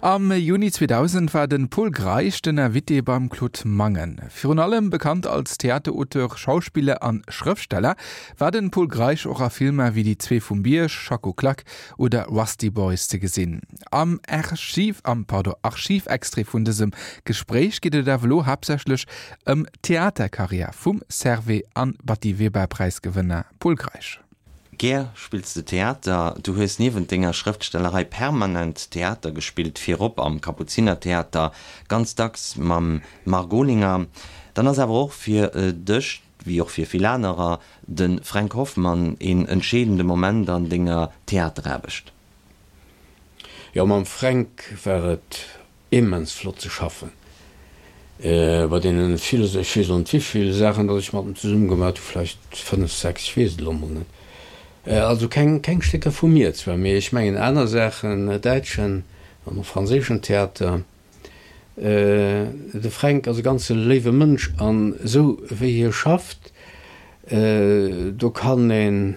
Am Juni 2000 war de Pol Greisch den Invité beim Claude Mangen. Virun allem bekannt als Theaterauteur, Schauspiller an Schrëftsteller, war den Pol Greisch och a Filmer wéi Déi zwee vum Bierg, Schacko Klak oder Rusty Boys ze gesinn. Am Archiv, am, pardon, Archivextrait vun dësem Gespréich geet et awer elo haaptsächlech ëm d'Theaterkarriär vum Servais an Batty Weber Präisgewënner Pol Greisch. Gär spills de Theater. Du hues niewent denger Schrëftstellerei permanent Theater gespillt, virop am Kapuzinertheater, ganz dacks mam Marc Olinger. Dann ass awer och fir dech, wéi och fir vill anerer, de Fränk Hoffmann een entscheedende Moment an denger Theateraarbecht. Jo, mam Fränk war et Immens flott ze schaffen bei deenen villen, ech weess elo net wivill Saachen datt ech mat em zesumme gemaat hu, vläicht 5, 6, ech weess et elo mol net. Also keng keng Stécker vu mir zwar, mee ech mengen aner Saachen, däitschen an och franséischen Theater. De Fränk ass e ganze léiwe Mënsch an esou wéi hie schafft, do kann een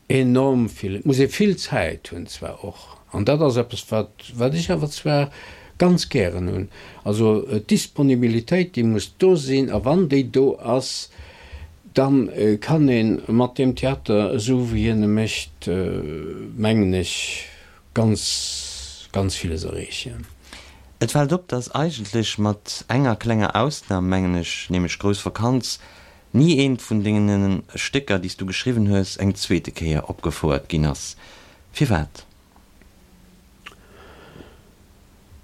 Enorm vill. Et muss ee vill Zäit hunn zwar och, an dat ass eppes wat wat ech awer zwar ganz gären hunn, also d'Disponibilitéit déi muss do sinn, a wann déi do ass, da kann ee mat deem Theater, esou wéi hien e mécht, mengen ech, ganz ganz villes erreechen. Et fält op, datt eigentlech, mat enger klenger Ausnam, mengen ech, nämlech Grouss Vakanz, Ni eent vun dengenen Stécker, déi s du geschriwwen hues, eng zweete Kéier opgefouert ginn ass. Firwat?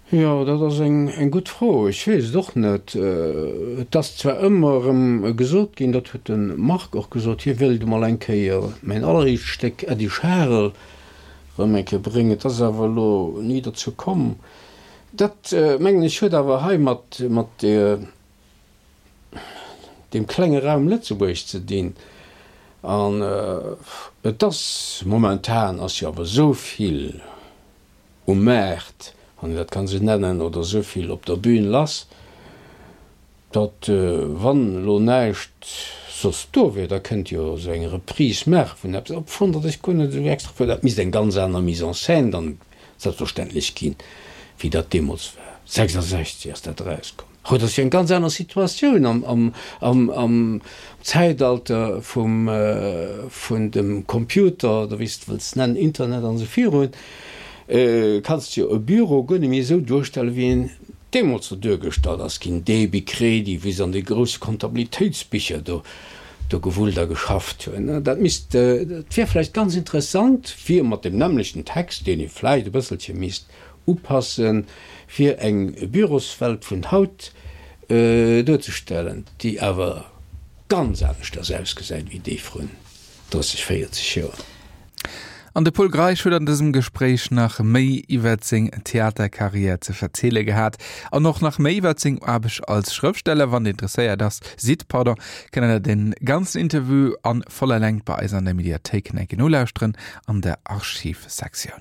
Jo, dat ass eng gutt Fro. Ech weess et och net. Et ass zwar ëmmer erëm gesot ginn, dat huet de Marc och gesot, hie wéilt emol eng Kéier mäin alleréischt Stéck Äddi Scharel erëm eng Kéier bréngen. Et ass awer elo ni dozou komm. Dat, mengen ech, huet awer hei mat deer deem klenge Raum Lëtzebuerg ze dinn. An et ass, momentan ass jo awer esou vill um Maart, wann een dat kann esou nennen, oder esou vill op der Bühn lass, datt wann elo näischt soss do wier, da kënnt jo esou eng Reprise maache vun eppes, obschonn datt ech guer net esou extra wëll, dat misst eng ganz aner Mise en scène dann selbstverständlech ginn, wéi dat deemools war. 66 ass dat erauskomm. Haut ass jo eng ganz aner Situatioun am Zäitalter vum vun dem Computer oder wéi s de wëlls nennen, Internet an esou virun, kanns de jo e Büro guer net méi esou duerstellen, wéi en deemools do duergestallt ass ginn, Débit, Crédit, wéi se an de grousse Kontabilitéitsbicher do do gewullt a geschafft hunn. Dat misst, dat wier vläicht ganz interessant, fir mat deem nämmlechten Text, deen ee vläicht e bësselche misst upassen, fir eng Büroswelt vun haut duerzestellen, déi awer ganz aneschters ausgesäit wéi déi vrun 30, 40 Joer. An de Pol Greisch huet an dësem Gespréich nach méi iwwert seng Theaterkarriär ze verziele gehat an och nach méi iwwert seng Aarbecht als Schrëftsteller. Wann Dir interesséiert ass, sidd, pardon, kënnt der den ganzen Interview an voller Längt bei eis an der Mediathéik nolauschteren an der Archivsektioun.